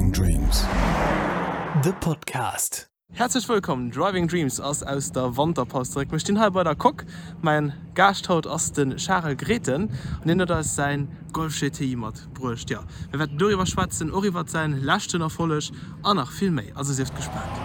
Driving Dreams, de Podcast. Häerzlech wëllkomm, Driving Dreams ass aus der Wanterpaus zeréck. Mir stinn hei bei der Coque. Mäin Gaascht haut ass de Charel Grethen an hien huet eis säin Golf GTI matbruecht. Jo, mir wäerten doriwwer schwätzen, och iwwert säin leschten Erfolleg an nach vill méi. Also sieft gespaant.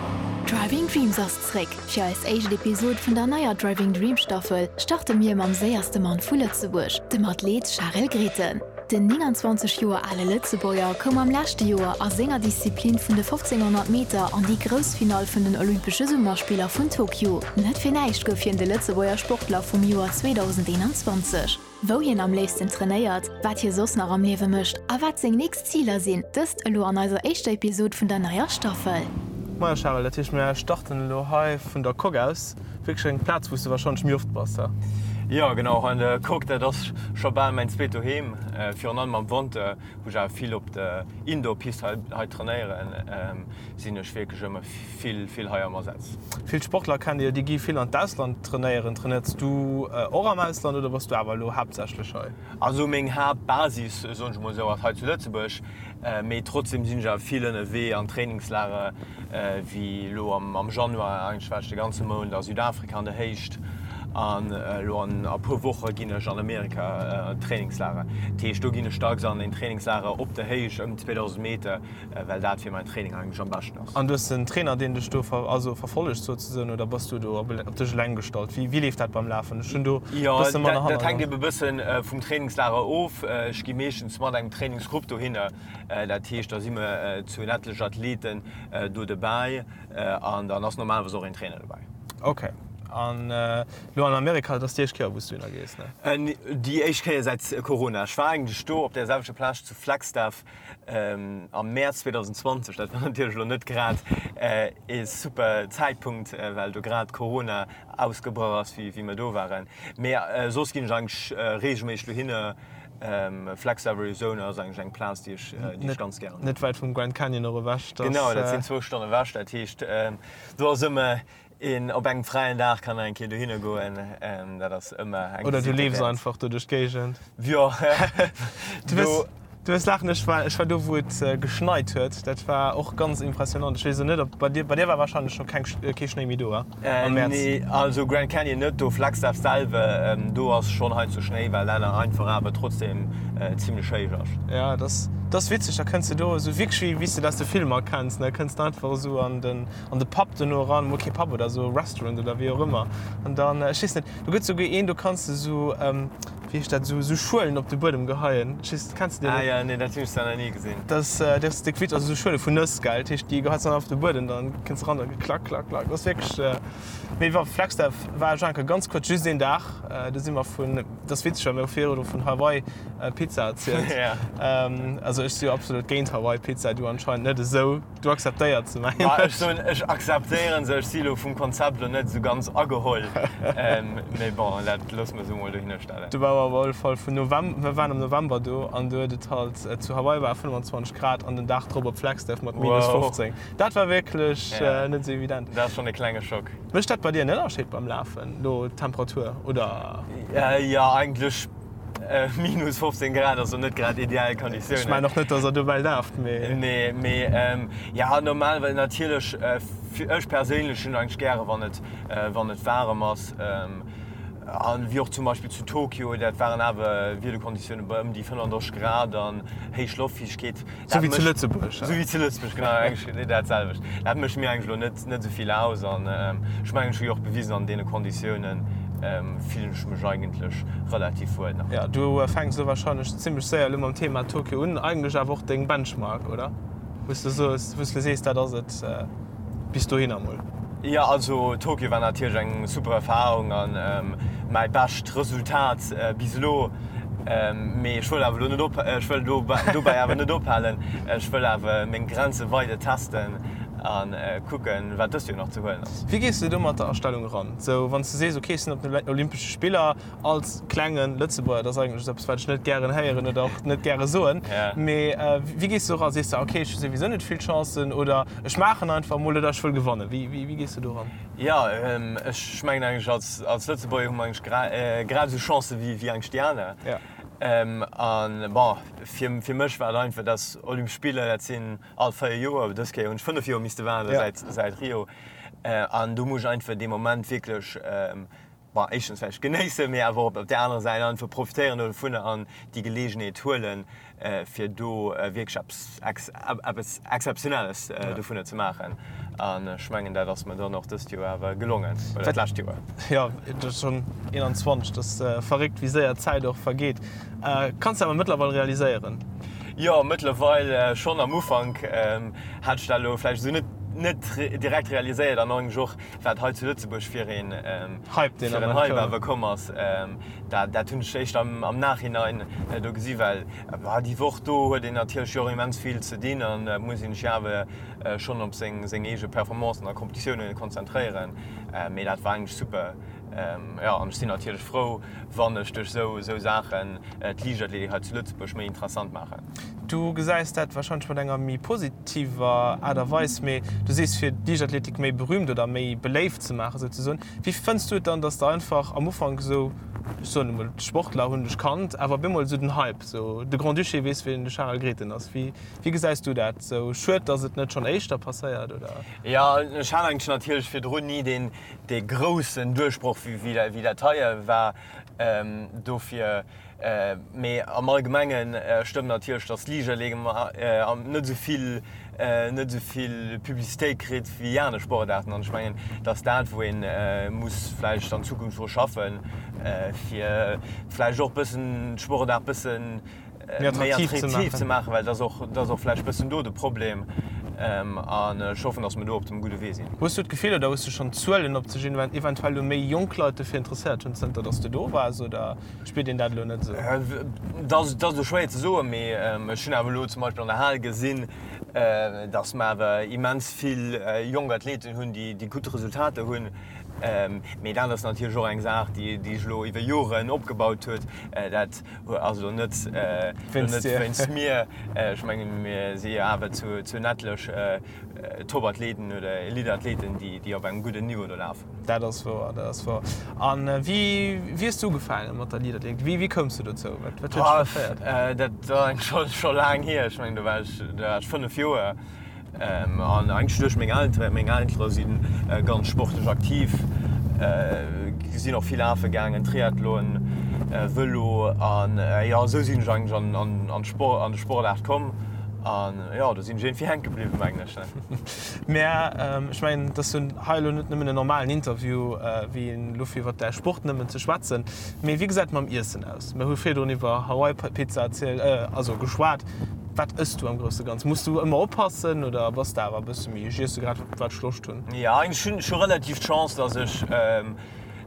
Driving Dreams ass zréck! Fir eis éischt Episod vun der neier Driving Dreams Staffel starte mir mam séierste Mann vu Lëtzebuerg, dem Athlet Charel Grethen. Den 29 Joer ale Lëtzebuerger koum am leschte Joer a senger Disziplin vun de 1500 Meter an déi grouss Finall vun den Olympesche Summerspiller vun Tokio. Net fir näischt gouf hien de Lëtzebuerger Sportler vum Joer 2021. Wou hien am léifsten trainéiert, wat hie soss nach am Liewe mécht a wat seng nächst Ziler sinn, dëst elo an eiser éischter Episod vun der neier Staffel. Moie Charel, dat heescht mir starten elo hei vun der Coque aus. Wierklech eng Plaz wou s de warscheinlech méi oft bass, he? Jo genau, hei an der Coque, dat ass scho bal mäin zweet Doheem. Virun allem am Wanter, wou ech awer vill op der Indoor-Pist hei hei trainéieren, sinn ech wierklech ëmmer vill vill hei am Asaz. Vill Sportler kennt Dir, déi gi vill an d'Ausland trainéieren. Trainéiers du och am Ausland oder bass du awer elo haaptsächlech hei? Also meng Haaptbasis, soen ech mol esou, ass hei zu Lëtzebuerg, mee trotzdem sinn ech awer vill ënnerwee an Trainingslager, wéi elo am Januar, eigentlech war ech de ganze Mount a Südafrika an der Héicht an elo an e puer Woche ginn ech an Amerika an Trainingslager. Dat heescht do ginn ech dacks an een Trainingslager op der Héicht ëm 2.000 Meter, well dat fir mäin Training eigentlech am beschten ass. An du hues en Trainer deen dech do also verfollegt souzesoen oder bass du do op dech eleng gestallt? Wéi leeft dat beim Lafen? Ech hunn do e bësse manner Hannergrond. Jo, dat hänkt ebe bëssen vum Trainingslager of. Ech gi meeschtens mat engem Trainingsgrupp dohinner, dat heescht da si mer zu en etlech Athleten do dobäi an dann ass normalerweis och een Trainer dobäi. Ok, an elo an Amerika, dat ass déi éischt Kéier wou s du dohinner gees, ne? Déi éischt Kéier säit Corona. Ech war eigentlech do op där selwechter Plage zu Flagstaff Am Mäerz 2020, dat war natierlech elo net grad ee super Zäitpunkt, well do grad Corona ausgebrach ass, wéi mir do waren. Mee soss ginn ech eigentlech reegelméisseg dohinner. Flagstaff, Arizona ass eigentlech eng Plaz, déi ech, déi ech ganz gären hunn. Net wäit vum Grand Canyon och ewech. Genau, dat sinn zwou Stonnen ewech. Dat heescht, do ass ëmmer Een op engem fräien Dag kann eng Kéier dohinner goen, dat ass ëmmer eng Oder du leefs einfach do duerch d'Géigend. Jo, do. Du wirst laachen, ech war, ech war do wou et geschneit huet, dat war och ganz impressionant. Ech weess elo net ob bei dir, bei dir war wahrscheinlech scho keng, kee Schnéi méi do, he? Am Mäerz? Nee, also Grand Canyon net, do Flagstaff selwer, do ass schonn heiansdo Schnéi, well dat einfach awer trotzdem zimlech héich ass. Ja, dat ass, dat ass witzeg, da kënns de do esou wierklech wéi, wéi s de dat aus de Filmer kenns, ne, kënns de einfach esou an den, an de Pub dono eran, mol kee Pub oder esou Restaurant oder wéi och ëmmer an dann, ech weess net, do gëtt souguer een, do kanns de esou, wéi heescht dat, esou esou Schuelen op de Buedem geheien, ech weess net, kenns de déi Ah net? jo, nee, dat hunn ech zwar nach ni gesinn. Dat ass, dat ass déck witzeg, also esou Schuele vun Nëss, gell, dat heescht, déi geheis dann op de Buedem, dann kënns de eran, da klack, klack, klack, dat ass wierklech, mee wa Flagstaff war ech enke ganz kuerz, just een Dag, do si mer vun, dat ass witzeg, well mir hu virdru vun Hawaii Pizza erzielt, also ech si jo absolut géint Hawaii Pizza, du anscheinend net esou. Du akzeptéiert se, mengen ech. Ech soen, ech akzeptéieren se. Ech si lo vum Konzept lo net esou ganz ageholl. Mee bon, dat loosse mer esou mol dohinner stellen. Do war op alle Fall vun November, mir waren am November do an do huet et halt zu Hawaii war 25 Grad an den Dag drop op Flagstaff mat minus 15. Dat war wierklech net esou evident. Dat ass schonn e klenge Schock. Mécht dat bei dir en Ënnerscheed beim Lafen, lo d'Temperatur, oder? Jo, eigentlech Minus 15 Grad ass lo net grad ideal Konditiounen. Ech mengen och net, dass der dobäi laaft, mee. Nee, mee ja normal, well natierlech ech perséinlech hunn eigentlech gäre wann et wann et waarem ass. An wéi och zum Beispill zu Tokio, dat waren awer Wiederkonditioune bei ëm déi 35 Grad an héich Loftfiichtegkeet. Sou wéi zu Lëtzebuerg. Sou wéi zu Lëtzebuerg, genau, eigentlech dat selwecht. Dat mécht mir eigentlech elo net, net esou vill aus an ech mengen, ech hu jo och bewisen, an deene Konditiounen fillen ech mech eigentlech relativ wuel nach. Jo, du fänks elo wahrscheinlech zimmlech séier elo mam Thema Tokio un, eigentlech awer och deng Benchmark, oder? Wou s de soos, wou s de sees, dat ass et. Bis dohinner mol. Jo, also Tokio war natierlech eng super Erfahrung an mäi bescht Resultat bis elo. Mee ech wëll awer elo net op, ech wëll dobäi awer net ophalen. Ech wëll awer meng Grenze weider testen a kucken, wat dëst Joer nach ze huelen ass. Wéi gees de do mat der Astellung eran? Sou wann s de sees, ok ech sinn op den Olympesche Spiller, Als klengen Lëtzebuerger, dat ass eigentlech eppes wat ech net gären héieren oder och net gäre soen, mee wéi gees du eran? Sees de, ok ech hu souwisou net vill Chancen oder ech maachen einfach emol oder ech wëll gewannen? Wéi wéi gees du do eran? Jo, ech mengen eigentlech als als Lëtzebuerger hu mer eigentlech grad esou Chancen wéi eigentlech déi aner. An bon, fir fir mech war et einfach, dass Olympesch Spiller, dat sinn all 4 Joer, dës Kéier hunn ech 5 Joer misste waarde säit säit Rio. An do muss ech einfach dee Moment wierklech, bon, éischtens vläicht genéissen, mee awer och op där anerer Säit einfach profitéieren dovunner an déi Geleegenheet huelen, fir do wierklech eppes eppes Exzeptionelles dovunner ze maachen. An ech mengen, dat ass mer dann och dëst Joer awer gelongen, oder d'lescht Joer. Jo, et ass schonn 21, et ass verréckt, wéi séier d'Zäit och vergeet. Kanns de awer mëttlerweil realiséieren? Jo, mëttlerweil schonn. Am Ufank hat ech dat elo vläicht esou net net direkt realiséiert an eigentlech och, wat hei zu Lëtzebuerg fir een Hype deen fir en Hype awer komm ass, dat dat hunn ech éischt am am Nachhinein do gesi well déi Woch do huet een natierlech jo och immens vill ze dinn an muss een sech awer schonn op seng seng eege Performancen a Kompetitiounen konzentréieren. Mee dat war eigentlech super. Jo, an ech sinn natierlech frou, wann ech duerch esou esou Saachen d'Liichtathletik hei zu Lëtzebuerg méi interessant maachen. Du gesäis dat warscheinlech mat enger méi positiver Aart a Weis, mee du sees fir d'Liichtathletik méi berühmt oder méi beléift ze maachen souzesoen. Wéi fënns du et dann, datt der einfach am Ufank esou, ech soen emol, d'Sportler hunn dech kannt, awer op eemol esou den Hype, esou de Grand-Duché weess wien de Charel Grethen ass. Wéi wéi gesäis du dat? Esou schued, datt et net schonn éischter passéiert, oder? Jo, ech hat eigentlech natierlech virdrun ni deen dee groussen Duerchbroch wéi dat hei war dofir. Mee am Allgemenge stëmmt natierlech, datt d'Liichtathletik net esou vill net esou vill Publicitéit kritt wéi aner Sportaarten. An ech mengen, dat ass dat, wou ee muss vläicht an Zukunft dru schaffen, fir vläicht och bëssen d'Sportaart bëssen méi attraktiv ze maachen, well dat ass och vläicht bëssen do de Problem. An ech hoffen, datt mer do op dem gudde Wee sinn. Hues du d'Gefill oder hues du schonn Zuelen, ob sech eventuell elo méi jonk Leit dofir interesséiert hunn, zënter datt s de do waars, oder spiert een dat elo net esou? Dat ass elo schwéier ze soen, mee ech hunn awer elo zum Beispill an der Hal gesinn, datt mer awer immens vill jonk Athleten hunn, déi gutt Resultater hunn. Mee dat ass natierlech och eng Saach, déi sech elo iwwer Joren opgebaut huet. Dat ass elo net wéinst mir. Ech mengen, mir si jo awer zu en etlech Topathleten oder Eliteathleten, déi op engem gudden Niveau do lafen. Dat ass wouer, dat ass wouer. A wéi hues du ugefaange mat der Liichtathletik? Wéi koums du dozou? Wat huet dech verféiert? Dat ass scho laang hier. Ech mengen, do war ech 5 Joer. An eigentlech duerch meng Elteren. Meng Eltere si ganz sportlech aktiv, sinn och vill lafe gaangen, Triathlon, Vëlo. An jo, esou sinn ech eigentlech an d'Sport, an de Sportaart komm. An jo, do sinn ech iergendwéi hänke bliwwen, mengen ech. Mä ech mengen, et ass jo hei elo net nëmmen en normalen Interview, wéi een elo fir iwwer däi Sport nëmmen ze schwätzen. Mee wéi gesäit et mam Iessen aus? Mir hu virdrun iwwer Hawaii-Pizza erzielt, also geschwat. Wat ëss du am grousse Ganze? Muss du ëmmer oppassen oder bass de awer e bësse méi, ech iesse grad wat ech Loscht hunn? Jo, ech hunn scho relativ d'Chance, dass ech,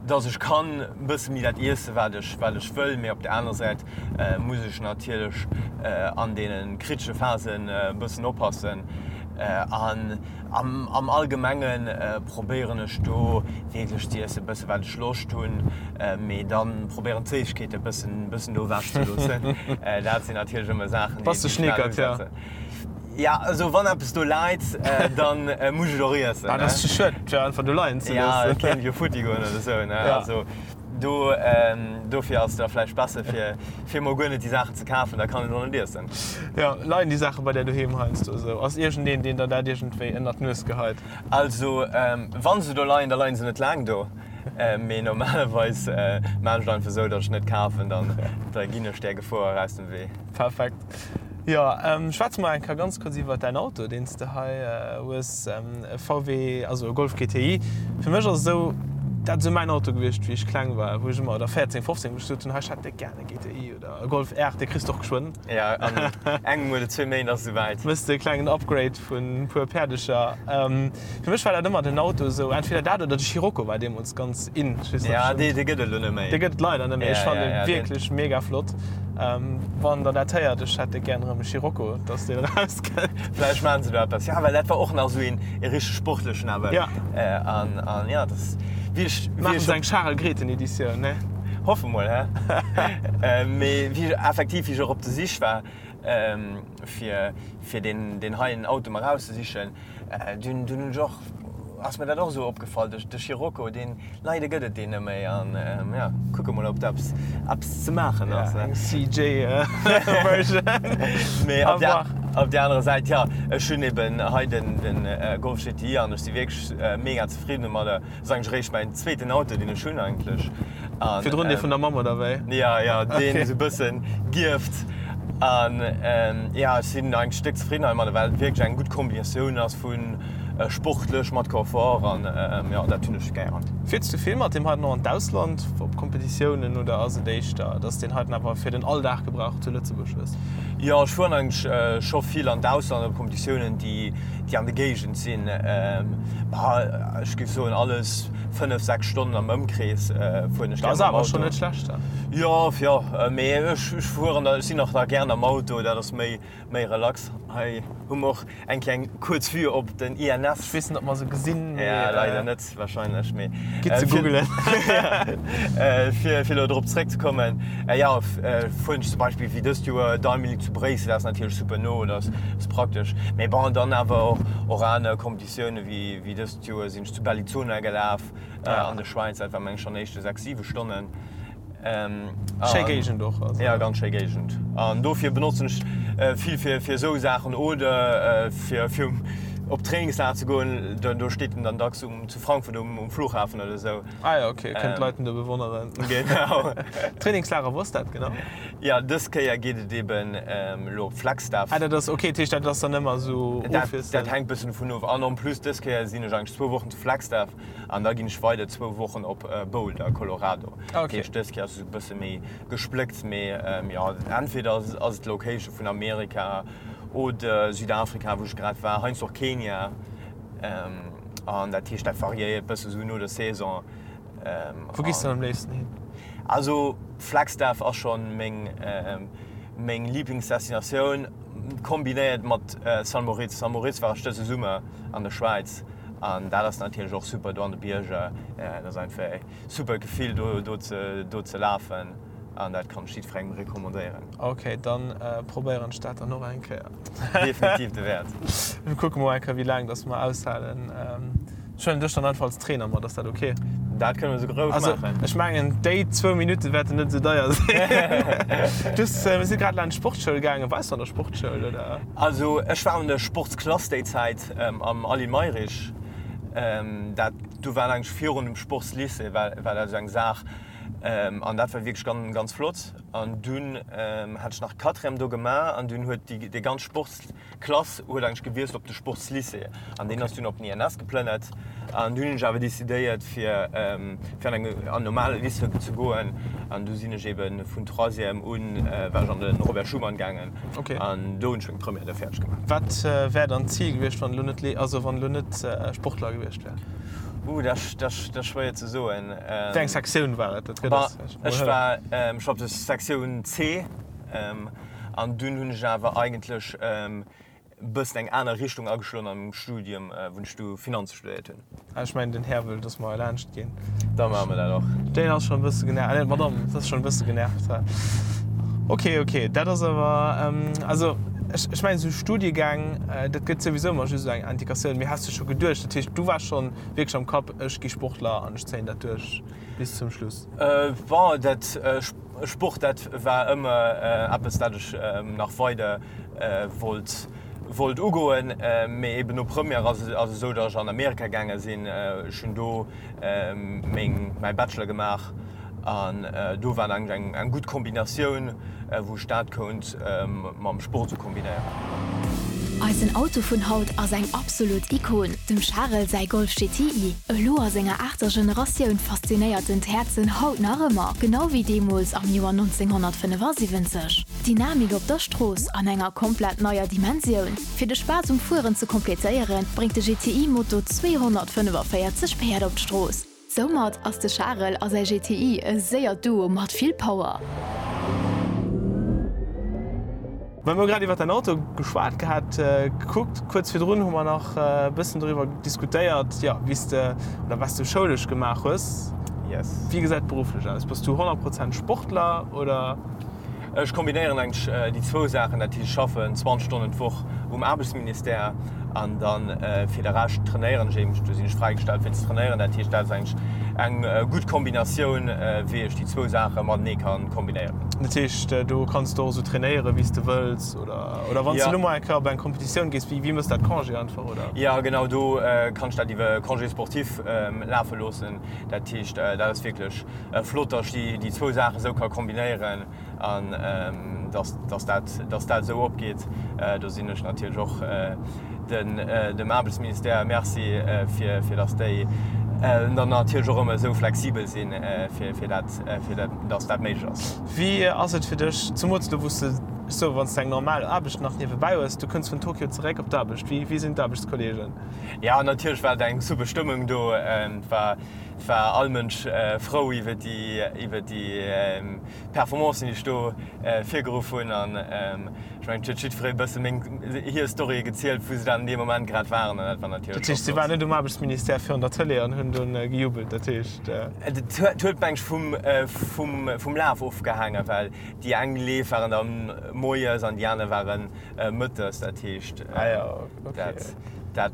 dass ech kann e bësse méi dat iesse wat ech, wat ech wëll. Mee op der anerer Säit muss ech natierlech an deene kritesche Phasen e bëssen oppassen. An am, am Allgemenge probéieren ech do wierklech ze iesse bësse wat ech Loscht hunn, mee dann probéieren d'Séissegkeete bëssen, bëssen do ewech ze loossen. Dat sinn natierlech ëmmer Saachen, déi ech schnell usetzen. Ja, also wann eppes do läit, dann muss ech et och iessen. Ah, dat ass ze schued fir einfach do leien ze loossen. Ja, et kéint jo futti goen oder sou, ne? Also do, dofir ass et da vläicht besser fir, fir emol guer net déi Saachen ze kafen, da kann een et och net iessen. Jo, leien déi Saache bei där doheem heiansdo esou? Ass iergendeen, deen der dat iergendwéi ënnert d'Nues geheit? Also wann se do leien, da leien se net laang do. Mee normalerweis maan ech et einfach esou, datt ech net kafen, dann da ginn ech där Gefor aus dem Wee. Perfekt. Jo, schwätze mer eng Kéier ganz kuerz iwwert däin Auto, deen s de hei hues, e VW, also e Golf GTI. Fir mech ass et esou, dat ass esou mäin Auto gewiescht, wéi ech kleng war, wou ech ëmmer, oder 14, 15, wou ech gesot hunn, hei ech hätt déck gär e GTI oder e Golf R, dee kriss de och geschwënn. Jo, an engem oder zwee Méint ass et esouwäit. Méchs de e klengen Upgrade vun e puer Päerdecher. Fir mech war dat ëmmer den Auto esou, entweder dat oder de Scirocco war deemools ganz in. Ech weess net, Ja, dee, dee gëtt et elo net méi. Dee gëtt et leider net méi. Ech fannen en wierklech mega flott. Wann der dat héiert, ech hätt gären erëm e Scirocco, dass deen erauskënnt. Vläicht maachen se do eppes. Ja, well dat war och nach esou een e richteg sportlechen awer. Ja. An, an ja, dat wéi ech, wéi Maachen ech se eng Charel Grethen Editioun, ne? Hoffe mol, hä? Mee wéi ech effektiv, wéi ech och op der Sich war, fir, fir deen, deen heien Auto mer erauszesichen, Dunn hunn ech och. ass mir dat och esou opgefall, de de Scirocco, deen, leider gëtt et deen net méi an ja, kucke mol ob do eppes eppes ze maachen ass. Ja, eng CJ Version. Mee op der op der anerer Säit, ja, ech hunn eben hei den den Golf GTI an ech si wierklech mega zefridden domadder. Ass eigentlech eréischt mäin zweeten Auto deen ech hunn eigentlech. An, Virdrun dee vun der Mamm oder wéi? Ja, ja, deen esou e bëssen gierft. An ja, ech sinn eigentlech déck zefridden heimadder, well et wierklech eng gutt Kombinatioun ass vu sportlech mat Confort an jo, dat hunn ech gären. Fiers du vill mat deem heiten och an d'Ausland op Kompetitiounen oder ass et éischter, dass deen heiten awer fir den Alldag-Gebrauch zu Lëtzebuerg hues? Jo, ech fueren eigentlech scho vill an d'Ausland op Kompetitiounen, déi déi an der Géigend sinn. Bah, ech géif soen, alles 5, 6 Stonnen am Ëmkrees fueren ech gär mam Auto. Dat ass awer schonn net schlecht dann. Jo, jo, mee ech fueren da, ech sinn och da gären am Auto, dat ass méi, méi relax. Hei hu mer och eng kleng kuerz Vue op den INS. Ech weess net, ob mer se gesinn, mee. Ja, leider net wahrscheinlech, mee. Gitt se googelen. Fir, fir elo drop zréckzekommen, jo, fueren ech zum Beispill wéi dëst Joer Diamond League zu Bréissel, dat ass natierlech super no, dat ass praktesch. Mee bon, dann awer och, och aner Kompetitioune wéi, wéi dëst Joer sinn ech zu Bellinzona gelaf an der Schwäiz, dat war meng ech schonn éischte 6, 7 Stonnen. Schéi Géigend och. Also. Ja, ganz schéi Géigend. An dofir benotzen ech vill fir, fir esou Saachen oder fir, fir op Trainingslager ze goen. Do, do steet en dann dacks um, zu Frankfurt um, um Flughafen oder esou. Ah ja, okay, kënnt d'Leit en do bewonneren. Genau. Trainingslager, wou ass dat genau? Ja, dës Kéier geet et eben elo op Flagstaff. Ah, dat ass, okay, dat heescht, dat ass dann ëmmer esou ofwiesselnd? Dat hänkt bëssen dovun of. An en plus, dës Kéier sinn ech eigentlech zwou Wochen zu Flagstaff an da ginn ech weider zwou Wochen op Boulder, Colorado. Ah, okay. Dat heescht, dës Kéier ass et esou e bësse méi gespléckt, mee jo, entweder ass et d'Location vun Amerika oder Südafrika, wou ech grad war, heiansdo och Kenia. An dat heescht, dat variéiert bësse sou no der Saison. Wou gees de dann am léifsten hin? Also Flagstaff ass schonn meng, meng Liblingsdestinatioun, kombinéiert mat Saint Moritz. Saint Moritz war ech dëse Summer an der Schwäiz an dat ass natierlech och super do an de Bierger. Dat ass einfach e super Gefill do, do ze, do ze lafen an dat kann ech jiddwerengem recommandéieren. Ok, dann probéieren ech dat dann och eng Kéier. Definitiv de Wäert. Mir kucke mol eng Kéier wéi laang dass mer aushalen. Ech huelen dech dann einfach als Trainer mat, ass dat ok? Dat kënne mer souguer roueg Also maachen. ech mengen déi zwou Minutte wäerten net esou deier sinn. Du hues, mir si grad laanscht d'Sportschoul gaangen. Waars du an der Sportschoul oder? Also ech war an der Sportsklass déi Zäit am Aly Mayrisch. Dat do war eigentlech virun dem Sportslycée war war dat esou eng Saach an dat war wierklech ganz ganz flott. An dunn hat ech nach Quatrième do gemaach an dunn huet déi déi ganz Sportsklass huet eigentlech gewiesselt op de Sportslycée an deen ass dunn op den INS geplënnert. An dunn hunn ech awer decidéiert fir fir an eng an normale Lycée ze goen an du sinn ech eben vun Troisième un war ech an de Robert Schuman gaangen an do hunn ech meng Première da fäerdeg gemaach. Wat wär dann d'Zil gewiescht wann elo net also wann elo net Sportler gewiescht wär? Ooh dat ass schwéier ze soen. Wéi eng Sektioun war et? Dat gëtt eis vläicht mol Ech war ech war op der Sektioun C an dunn hunn ech awer eigentlech e bëssen eng aner Richtung ageschloen an mengem Studium, wou ech du Finanze studéiert hunn. Ah, ech mengen den Här wëll, dass mer laanscht ginn. Da maache mer dat och. Deen ass schonn e bësse genervt, ah nee, d'Madame ass schonn e bësse genervt. Ok, ok, dat ass awer, also ech, ech mengen esou Studiegäng, dat gëtt souwisou ëmmer just esou eng Indikatioun. Mee has de scho geduecht, dat heescht du waars schonn wierklech am Kapp, ech gi Sportler an ech zéien dat duerch bis zum Schluss? Bon, dat Sport, dat war ëmmer eppes, dat ech nach weider wollt wollt ugoen. Mee eben no Première ass et esou, datt ech an Amerika gaange sinn. Ech hunn do meng mäi Bachelor gemaach an do war eigentlech eng eng gutt Kombinatioun, wou ech dat kount mam Sport esou kombinéieren. Eisen Auto vun haut ass eng absolut Ikon, dem Charel säi Golf GTI. Elo a senger aachter Generatioun faszinéiert en d'Häerzen haut nach ëmmer, genau wéi deemools am Joer 1975. Dynamik op der Strooss an enger komplett neier Dimensioun. Fir de Spaass um Fueren ze kompletéieren, bréngt de GTI Moto 245 Päerd op d'Strooss. Soumat ass de Charel a säi GTI e séiert Duo mat vill Power. Well mir hu grad iwwer däin Auto geschwat gehat, gekuckt, kuerz virdrun hu mer nach e bëssen doriwwer diskutéiert, jo, wéi s de oder wat s de schoulesch gemaach hues. Yes. Wéi gesäit et berufflech aus? Bass du 100 Prozent Sportler oder? Ech kombinéieren eigentlech déi zwou Saachen, dat heescht ech schaffen 20 Stonnen d'Woch um Aarbechtsministère an dann fir de Rescht trainéieren ech eben, do sinn ech fräigestallt fir ze trainéieren. Dat heescht dat ass eigentlech eng gutt Kombinatioun wéi ech déi zwou Saache matenee kann kombinéieren. Dat heescht do kanns de och esou trainéieren wéi s de wëlls oder oder wann s de elo mol eng Kéier op eng Competitioun gees, wéi wéi mëss dat Congé einfach oder? Jo genau, do kann ech dat iwwer Congé sportif lafe loossen. Dat heescht dat ass wierklech Flott, dass ech déi zwou Saachen esou ka kombinéieren an dass dat dass dat esou opgeet. Do sinn ech natierlech och den dem Aarbechtsministère Merci fir fir dass déi dann natierlech och ëmmer esou flexibel sinn, fir fir dat fir dat dass dat méiglech ass. Wéi ass et fir dech, zemools elo wou s de sou wann s de eng normal Aarbecht nach niewebäi hues, du kënns vun Tokio zeréck op d'Aarbecht, wéi wéi sinn d'Aarbechtskollegen? Jo, natierlech war et eng super Stëmmung do. Et war Et war all Mënsch frou iwwer déi iwwer déi Performancen, déi ech do virgeruff hunn. An ech mengen, et huet jiddweree e bësse meng hir Storye gezielt, wou se dann an deem Moment grad waren. An dat war natierlech Dat heescht, si waren net um Aarbechtsministère virun der Tëlee an hunn dunn gejubelt? Dat heescht. Et huet, meng ech, vum vum vum Laf ofgehaangen, well déi eng Leef waren da moies an déi aner waren Mëttes, dat heescht, dat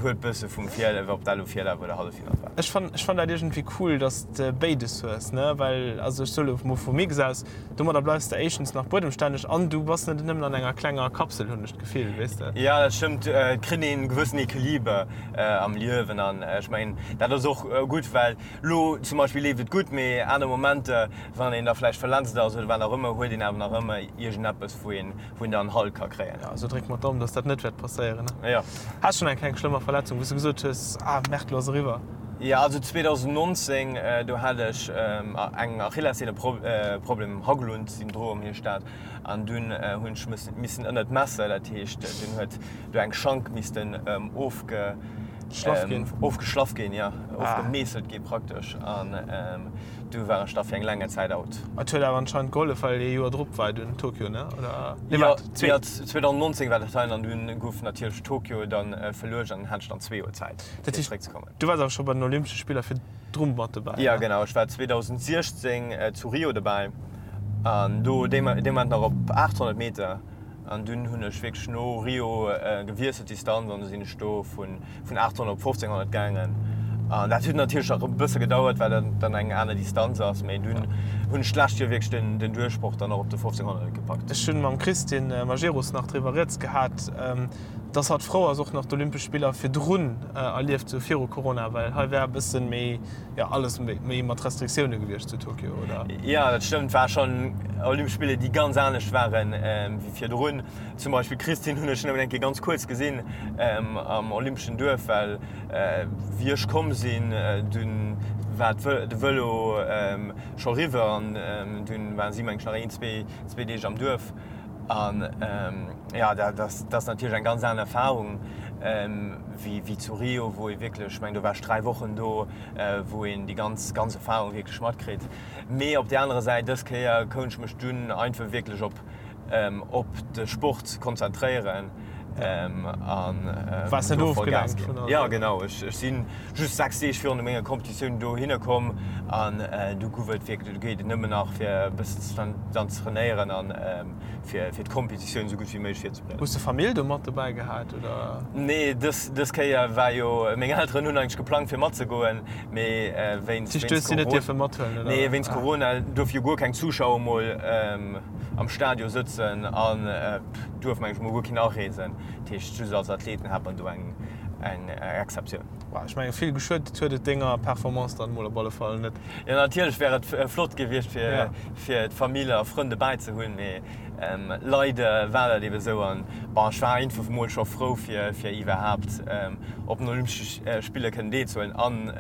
huet bësse vum Vir, ob dat elo Virlaf oder Halleffinall war. Ech fann, ech fann dat iergendwéi cool, dass de béides hues, ne, well, also ech soe lo mol vu Mix aus, domadder bleifs de éischtens nach buedemstänneg an du bass net nëmmen an enger klenger Kapsel, hunn ech d'Gefill, weess de. Jo, dat stëmmt, et kritt een e gewëssen Equiliber am Liewen an ech mengen, dat ass och gutt, well lo zum Beispill leeft et gutt, mee aner Momenter, wann een da vläicht verletzt ass oder wat och ëmmer, huet een awer nach ëmmer iergendeppes, wou een wou een dann Halt ka kréien. Ja, also dréck mer d'Daumen, dass dat net wäert passéieren. Ja. Has schonn eng kleng schlëmmer Verletzung, wou s de gesot hues, ah Merde, lo ass eriwwer? Ja, also 2019, do hat ech eng Achillessehneproblem, Haglund-Syndrom heescht dat, an dunn hunn ech missen ënnert d'Messer, dat heescht dunn huet do eng Schank missten ofge Schlaff ginn. Ofgeschlaff ginn, ja, ofgemeesselt gi praktesch an. Du war ech da fir eng länger Zäit out. Et huet awer anscheinend gehollef, well ee Joer drop war dunn Tokio, ne? Oder? Nee, waart, zwee. Jo, 2019 war dat hei an dunn gouf natierlech Tokio dann verluecht an hat ech dann zwee Joer Zäit, fir zeréckzekommen. Du waars awer scho bei den Olympesche Spiller virdru mat dobäi, ne? Jo, genau. Ech war 2016 zu Rio dobäi an do dee Moment nach op 800 Meter. An dunn hunn ech wierklech no Rio gewiesselt d'Distanz an du sinn ech do vun vun 800 op 1500 gaangen. An dat huet natierlech nach e bësse gedauert, well dat dann eng aner Distanz ass, mee dunn hunn ech d'lescht Joer wierklech den den Duerchbroch dann och op de 1500 gepackt. Ech hunn mam Christine Majerus nach driwwer rieds gehat, dass hatt frou ass och nach d'Olympesch Spiller virdrun erlieft ze hu viru Corona, well hei wär e bëssen méi, jo alles méi mat Restriktioune gewiescht zu Tokio, oder? Jo, dat stëmmt. War schonn Olympesch Spiller, déi ganz anescht waren wéi virdrun. Zum Beispill d'Christine hunn ech nëmmen eng Kéier ganz kuerz gesinn am Olympeschen Duerf, well wéi ech komm sinn, dunn war de Vëlo scho riwwer an dunn waren si meng ech nach een, zwee Deeg am Duerf. An jo, dat ass natierlech eng ganz aner Erfarung wéi zu Rio, wou ee wierklech, ech mengen do war ech 3 Wochen do, wou een déi ganz, ganz Erfarung wierklech matkritt. Mee op där anerer Säit, dës Kéier kount ech mech dunn einfach wierklech op op de Sport konzentréieren an Waars net ofgelenkt vun allem? Jo genau, ech si just 6 Deeg virun menger Competitioun dohinner komm an du gouf et wierklech, du geet et nëmmen nach fir e bëssen dann ze trainéieren an fir fir d'Competitioun esou gutt wéi méiglech virzebereeden. Hues de Famill do mat dobäi gehat oder? Nee, dës dës Kéier war jo, meng Elteren hunn eigentlech geplangt fir matzegoen, mee wéinst wéinst Hues si net dierfe mathuelen oder? Nee, wéinst Corona duerfe jo guer keng Zuschauer mol am Stadion sëtzen an duerf meng ech mol guer keen areesen. Dat heescht just als Athleten hat man do eng eng Exceptioun. Bah, ech mengen vill geschuet huet et denger Performance dann mol op alle Fall net. Jo natierlech wär et flott gewiescht fir fir d'Famill a Frënn dobäi ze hunn, mee leider war dat ebe sou an bon ech war einfach mol scho frou fir fir iwwerhaapt op den Olympesche Spiller kënnen deelzehuelen an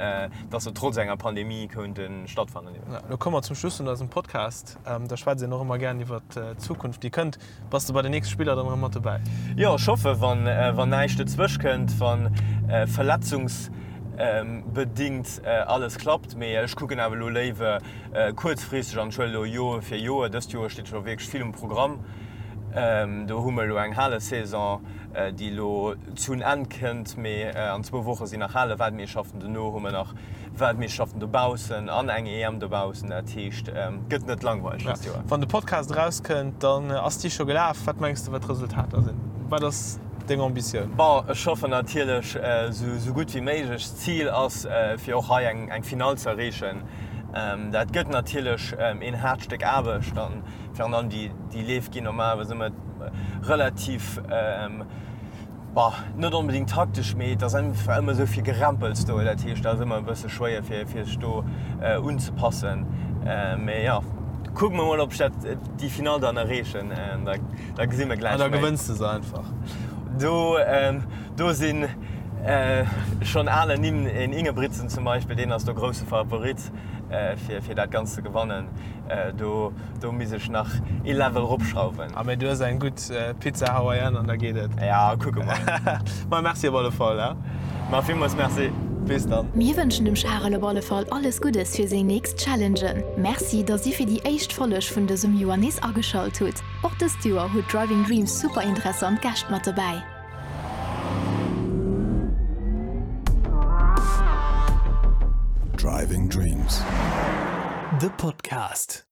dass se trotz enger Pandemie konnte stattfannen. Lo komme mer zum Schluss vun eisem Podcast. Da schwätzt een och ëmmer gären iwwer d'Zukunft, déi kënnt. Bass de bei den nächste Spiller dann erëm mat dobäi? Jo, ech hoffe wann näischt dozwësch kënnt, wa verletzungsbedingt alles klappt. Mee ech kucken awer elo léiwer kuerzfristeg an ech huelen elo Joer fir Joer. Dëst Joer steet scho wierklech vill um Programm. Do hu mer elo eng Halesaison, déi elo zun Enn kënnt, mee an zwou Woche sinn nach Hale-Weltmeeschterschaften. Dono hu mer nach Weltmeeschterschaften dobaussen an eng EM dobaussen. Dat heescht, gëtt net langweileg dëst Joer. Wann de Podcast erauskënnt, dann ass déi scho gelaf. Wat mengs de, wat d'Resultater sinn? Wat ass deng Ambitioun? Bon, ech hoffen natierlech esou gutt wéi méiglech. D'Zil ass, fir och hei eng Finall ze erreechen. Dat gëtt natierlech een haart Stéck Aarbecht. Virun allem déi, déi Leef ginn normalerweis ëmmer relativ, bah, net onbedéngt taktesch, mee et ass einfach ëmmer esou vill Gerempels do. Dat heescht, dat ass ëmmer e bësse schwéier, fir, fir sech do unzepassen. Mee jo, kucke mer mol, ob ech dat, déi Finall dann erreechen. Da, da gesi mer gläich méi. An da gewënns de se einfach. Do, do sinn schonn aner Nimm, en Ingebrigtsen zum Beispill, deen ass do grousse Favorit, fir, fir dat Ganzt ze gewannen. Do, do misst ech nach ee Level ropschrauwen. Ah, mee du hues eng gutt Pizza Hawaiian an da geet et. Ja, kucke mer. Ma merci op alle Fall, he. Ma villmools merci. Bis dann. Mir wënschen dem Charel op alle Fall alles Guddes fir seng nächst Challengen. Merci, dass dir fir déi éischt Folleg vun dësem Joer nees ageschalt hutt. Och dëst Joer huet Driving Dreams super interessant Gäscht mat dobäi. Driving Dreams, de Podcast.